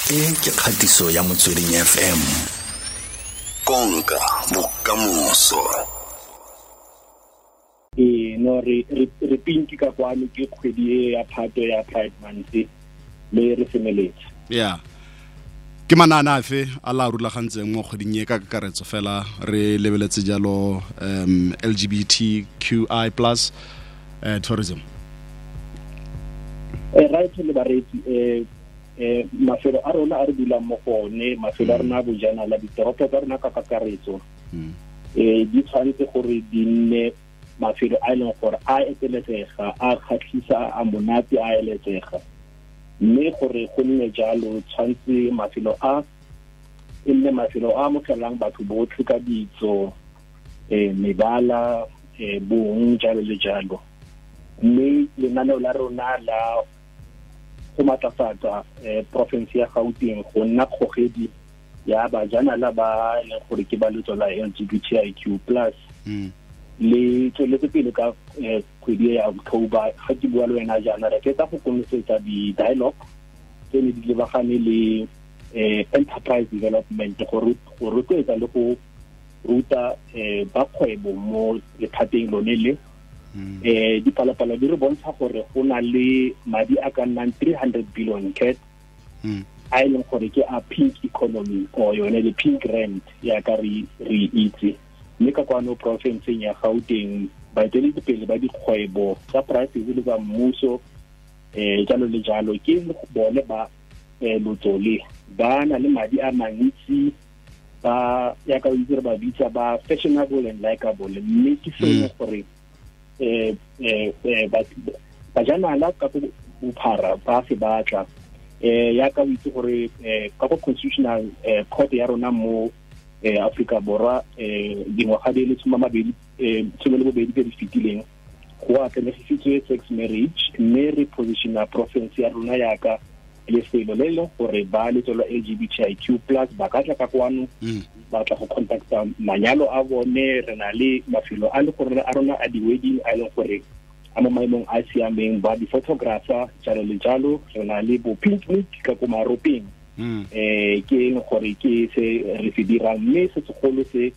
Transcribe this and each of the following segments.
E ke kgatiso ya Motsweding FM. Konka bokamoso. Ee, no re pinki ka kwano ke kgwedi e ya Phato ya Pride Month le re semeletse. Yeah. Ke manane afe a la rulagantseng mo kgweding e ka kakaretso fela re lebeletse jalo LGBTQI plus tourism? Right, le bareetsi, mafelo a rona a re dulang mo go one, mafelo a rona a bojanala, ditoropo tsa rona ka kakaretso, di tshwanetse gore di nne mafelo a e leng gore a eteletsega, a kgatlhisa, a monate, a eletsega. Mme gore go nne jalo, tshwanetse mafelo a e nne mafelo a amogelang batho botlhe ka ditso, mebala, bong, jalo le jalo. Mme lenaneo la rona la go matlafatsa province ya Gauteng go nna kgogedi ya bajanala ba e leng gore ke ba letso la LGBTIQ plus le tsweletse pele ka kgwedi ya October. Ga ke bua le wena jaana, re fetsa go konosetsa di-dialogue tse ne di lebagane le enterprise development, go rotloetsa le go ruta ba kgwebo mo lephateng lone le. Dipalopalo di re bontsha gore go na le madi a ka nnang 300 billion cat a e leng gore ke a pink economy or yone le pink rand ya ka re itse. Mme ka kwano provinceng ya Gauteng, baeteledipele ba dikgwebo tsa private le tsa mmuso, jalo le jalo, ke bone ba lotso le ba na le madi a mantsi, ba ya ka itse re ba bitsa ba fashionable and likable. Mme ke sengwe gore bajanala ka go bophara ba se batla. Ya ka o itse gore ka go Constitutional Court ya rona mo Afrika Borwa, dingwaga di le 28 tse di fetileng, go atlenegisitswe sex marriage, mme re positiona province ya rona yaka lefelo le leng gore ba letso la LGBTIQ plus ba ka tla ka kwano, ba tla go contacta manyalo a bone. Re na le mafelo a le gore a rona a di-wedding a e leng gore a mo maemong a siameng, ba di-photographer, jalo le jalo. Re na le bo pink week ka ko Maropeng, ke eng gore ke se re se dirang. Mme se segolo se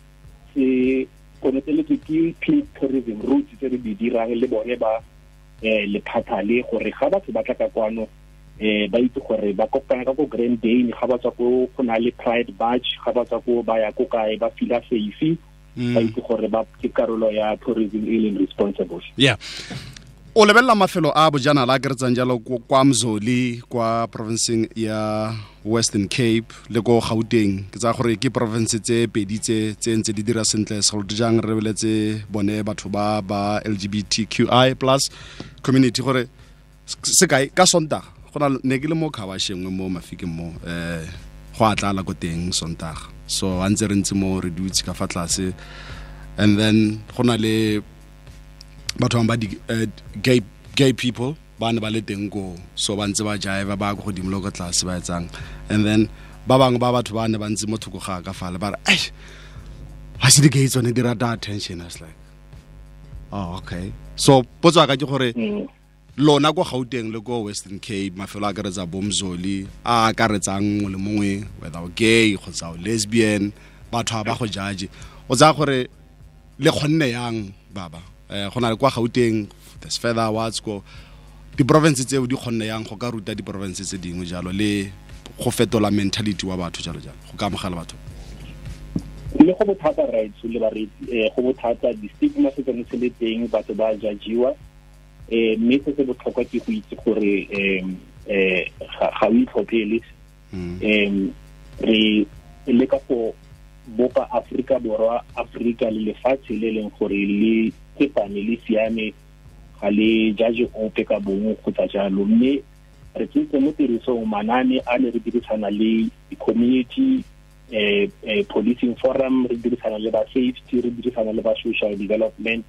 se konoteletswe ke pink tourism routes tse re di dirang le bone ba lephata le, gore ga batho ba tla ka kwano, ba itse gore ba kopana ka ko Grand Dane, ga ba tswa ko go na le Pride March, ga ba tswa ko ba ya ko kae, ba feel safe, ba itse gore ba ke karolo ya tourism e leng responsible. Yeah, o lebelela mafelo a bojanala a keretsang jalo kwa Mzoli, kwa provinceng ya Western Cape le ko Gauteng, ke tsaya gore ke province tse pedi tse ntse di dira sentle, segolo jang re lebeletse bone batho ba ba LGBTQI plus community. Gore sekai, ka Sontaga go na ne ke le mo khabashengwe mo Mafikeng mo, go a tlala ko teng Sontaga. So a ntse re ntse mo re dutse ka fa tlase, and then go na le batho bangwe ba di gay people ba ne ba le teng koo. So ba ntse ba jive, ba ko godimo le ko tlase ba etsang, and then ba bangwe ba batho ba ne ba ntse mo thoko ga ka fale ba re, "Ai, ga se di-gay tsone di rata attention." I was like, "Oh, okay." So potso ya ka ke gore lona ko Gauteng le ko Western Cape, mafelo a akaretsa bomzoli a akaretsang mongwe le mongwe, whether o gay kgotsa o lesbian, batho ba go judge, o tsaya gore le kgonne yang baba go na le kwa Gauteng, there's further awards ko diprovince tseo, di kgonne yang go ka ruta diprovince tse dingwe jalo le go fetola mentality wa batho, jalo jalo, go ka amogela batho? Le go bothata, right, le bareetsi, go bothata, di-stigma se tsone se le teng, batho ba judgiwa. Mme se se botlhokwa ke go itse gore ga o itlhophele. Re leka go bopa Afrika Borwa, Afrika le lefatshe le leng gore le tsepame, le siame, ga le judge ope ka bongwe kgotsa jalo. Mme re tsentse mo tirisong manane a ne re dirisana le di-community policing forum, re dirisana le ba safety, re dirisana le ba social development.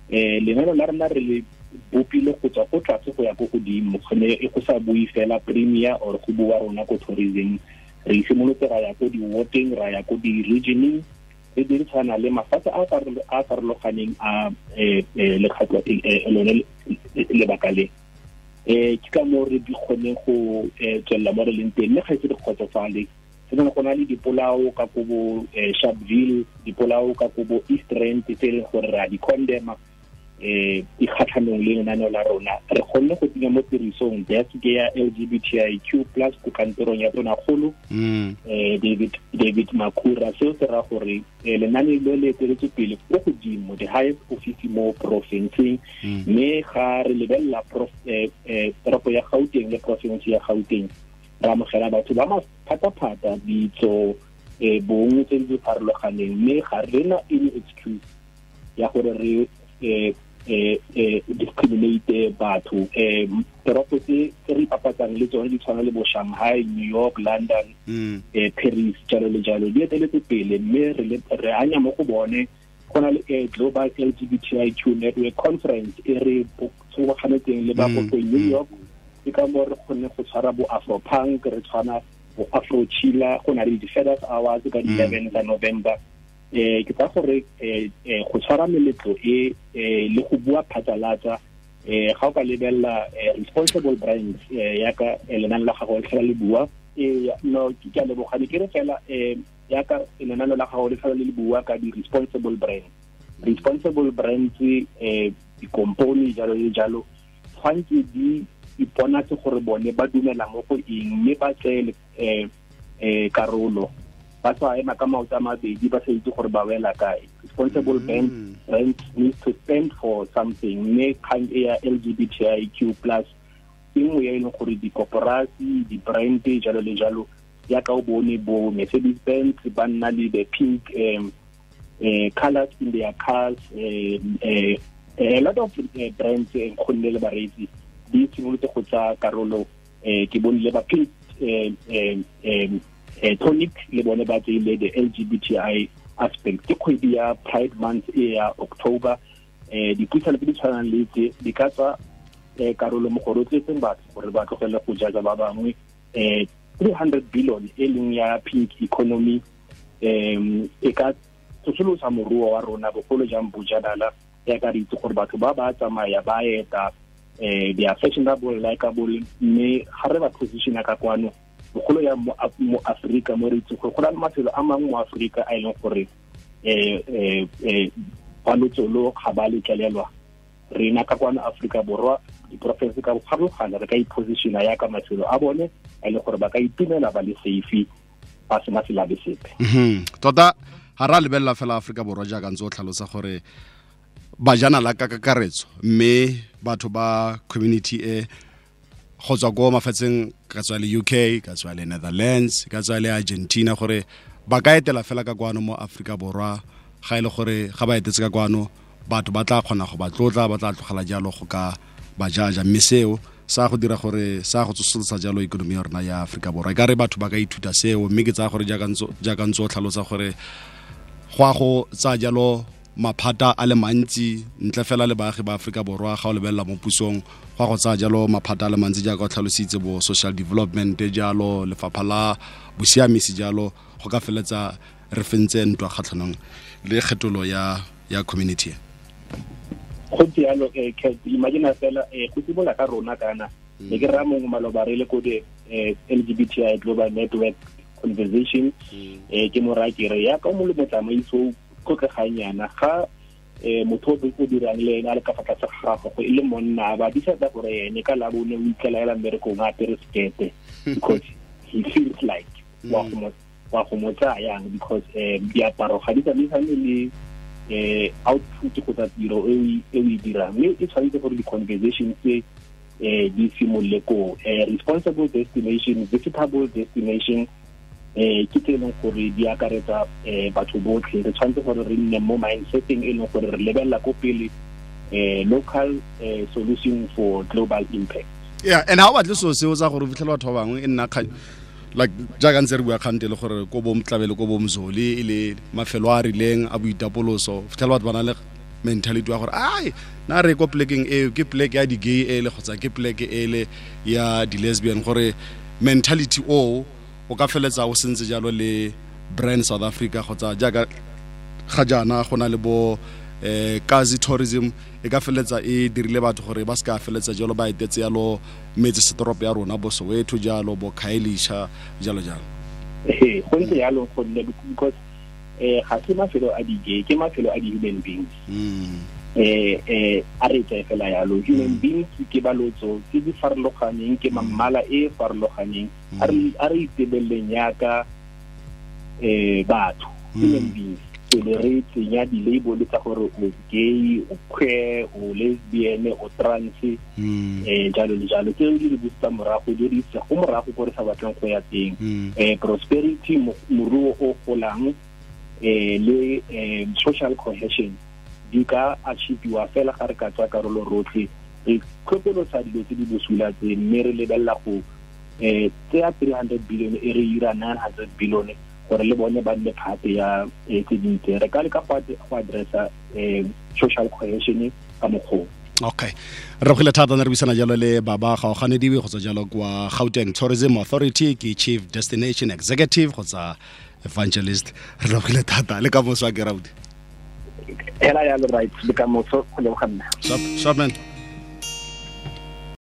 Lenaneo la rona re le bopile go tswa ko tlase go ya ko godimo, gone e go sa bue fela premier or go bua rona ko tourism. Re simolotse ra ya ko di-wardeng, ra ya ko di-regioneng, re dirisana le mafatshe a farologaneng a lekgatlho lone lebaka le. Ke ka moo re di kgoneng go tswelela mo re leng teng, mme ga ise re kgotsofale. Se go na le dipolao ka ko bo Sharpeville, dipolao ka ko bo East Rand tse e leng gore re a di condemna di kgatlhanong le lenaneo la rona. Re kgonne go tsenya mo tirisong desk ya LGBTIQ plus ko kantorong ya Tonakgolo David Makhura. Seo se raya gore lenane le le eteletswe pele ko godimo, the highest office mo porofenseng. Mme ga re lebelela toropo ya Gauteng le porofense ya Gauteng, re amogela batho ba maphataphata, ditso, bong tse di farologaneng, mme ga re na any excuse ya gore re discriminate batho. Toropo tse re ipapatsang le tsone di tshwana le bo Shanghai, New York, London, Paris, jalo le jalo, di eteletse pele, mme re anya mo go bone. Go na le Global LGBTIQ Network Conference e re tshoboganetseng le ba go New York. Ke ka moo re kgonne go tshwara bo Afropunk, re tshwana bo Afro Chila, go na le di-Feathers Awards ka di-11 tsa November. Ke tsa gore go tshwara meletlo e le go bua phatlalatsa. Ga o ka lebelela responsible brands yaka lenane la gago le tlhola le bua, no, ke a leboga. Ne ke re fela yaka lenane la gago le tlhola le bua ka di-responsible brands, responsible brands, dikompone jalo le jalo, tshwanetse di iponatse gore bone ba dumela mo go eng, mme ba tseye karolo, ba sa ema ka maoto a mabedi ba sa itse gore ba wela kae. Responsible brands need to stand for something, mme kgang e ya LGBTIQ plus ke nngwe ya e leng gore dikoporasi, di-brand jalo le jalo, yaka o bone bo Mercedes Benz ba nna le the pink colors in their cars. A lot of brands nkgonne le bareetsi di simolotse go tsaya karolo. Ke bone le ba Pink Tonic le bone ba tseile the LGBTI aspect. Ke kgwedi ya Pride Month e ya October. Dipuisano tse di tshwanang le tse di ka tswa karolo mo go rotloetseng batho gore ba tlogele go jaja ba bangwe. 300 billion e leng ya pink economy e ka tsosolosa moruo wa rona, bogolo jang bojanala, ya ka re itse gore batho ba ba tsamaya ba eta, they are fashionable, likeable, mme ga re ba positiona ka kwano, bogolo ya mo Afrika, mo re itse gore go na le mafelo a mangwe mo Afrika a e leng gore ba lotsolo ga ba letlelelwa. Rena ka kwano Afrika Borwa, diporofense ka farologana, re ka ipositiona yaka mafelo a bone a e leng gore ba ka itumela ba le safe, ba sena selabe sepe. Tota ga ra lebelela fela Aforika Borwa jaaka ntse o tlhalosa gore bajanala ka kakaretso, mme batho ba community e go tswa ko mafatsheng, ka tswa le UK, ka tswa le Netherlands, ka tswa le Argentina, gore ba ka etela fela ka kwano mo Aforika Borwa. Ga e le gore ga ba etetse ka kwano, batho ba tla kgona go ba tlotla, ba tla tlogela jalo go ka ba jaja, mme seo sa go dira gore sa go tsosolosa jalo ikonomi ya rona ya Aforika Borwa. E ka re batho ba ka ithuta seo, mme ke tsaya gore jaaka ntse o tlhalosa gore go a go tsaya jalo maphata a le mantsi ntle fela le baagi ba Aforika Borwa. Ga o lebelela mo pusong, go a go tsaya jalo maphata a le mantsi jaaka o tlhalositse, bo social development jalo, lefapha la bosiamisi jalo, go ka feletsa re fentse ntwa kgatlhanong le kgetolo ya community. Go ntse yalo. Imagine fela go simolola ka rona. Kana ne ke raya mongwe maloba re le ko the LGBTI Global Network conversation, ke mo raya ke re yaka o mo le motsamaiso o tlotlegang yana, ga motho o dirang le ene a le ka fa tlase ga gago go e le monna, ba decide gore ene ka labone o itlela mmerekong a apere sekete because he feels like wa go mo tsaya yang, because diaparo ga di tsamaisane le output kgotsa tiro e o e dirang. Mme e tshwanetse gore di-conversation tse di simolole ko responsible destination, visitable destination, ke tse e leng gore di akaretsa batho botlhe. Re tshwanetse gore re nne mo mindseteng e leng gore re lebelela ko pele, local solution for global impact. Yeah, and ha o batle seo seo tsa gore o fitlhela batho ba bangwe e nna like jaaka ntse re bua kgante le gore ko bo Mtlabele, ko bo Mzoli, e le mafelo a a rileng a boitapoloso, fitlhela batho ba na le mentality wa gore ai, na re ko plekeng eo ke pleke ya di-gay ele kgotsa ke pleke ele ya di-lesbian, gore mentality o o ka feletsa o sentse jalo le brand South Africa, kgotsa jaaka ga jaana go na le bo Kazi tourism e ka feletsa e dirile batho gore ba se ka feletsa jalo ba etetse yalo metse setoropo ya rona bo Soweto jalo bo Khayelitsha jalo jalo. Ee, go ntse yalo gonne because ga se mafelo a di-gay, ke mafelo a di-human beings. A re tseye fela yalo, human beings ke balotso tse di farologaneng, ke mammala e e farologaneng. A re itebeleleng yaka batho, human beings, pele re tsenya di-label tsa gore o gay, o queer, o lesbian, o trans, jalo le jalo. Tseo di re busetsa morago, di re isa go morago ko re sa batleng go ya teng. Prosperity, moruo o golang, le social cohesion di ka achieviwa fela ga re ka tswa karolo rotlhe, re tlhokolosa dilo tse di bosula tse, mme re lebelela go tseya 300 billion e re ira 900 billion gore le bone ba nne part ya tse dintse. Re ka leka go addressa social cohesion ka mokgwa. Okay, re gile thata ne re buisana jalo le Baba Gaoganediwe go tswa jalo kwa Gauteng Tourism Authority, ke Chief Destination Executive kgotsa Evangelist. Re lebogile thata, le ka moso a ke rauti. Hela yalo, right, le ka moso, go leboga nna. Sharp, sharp man.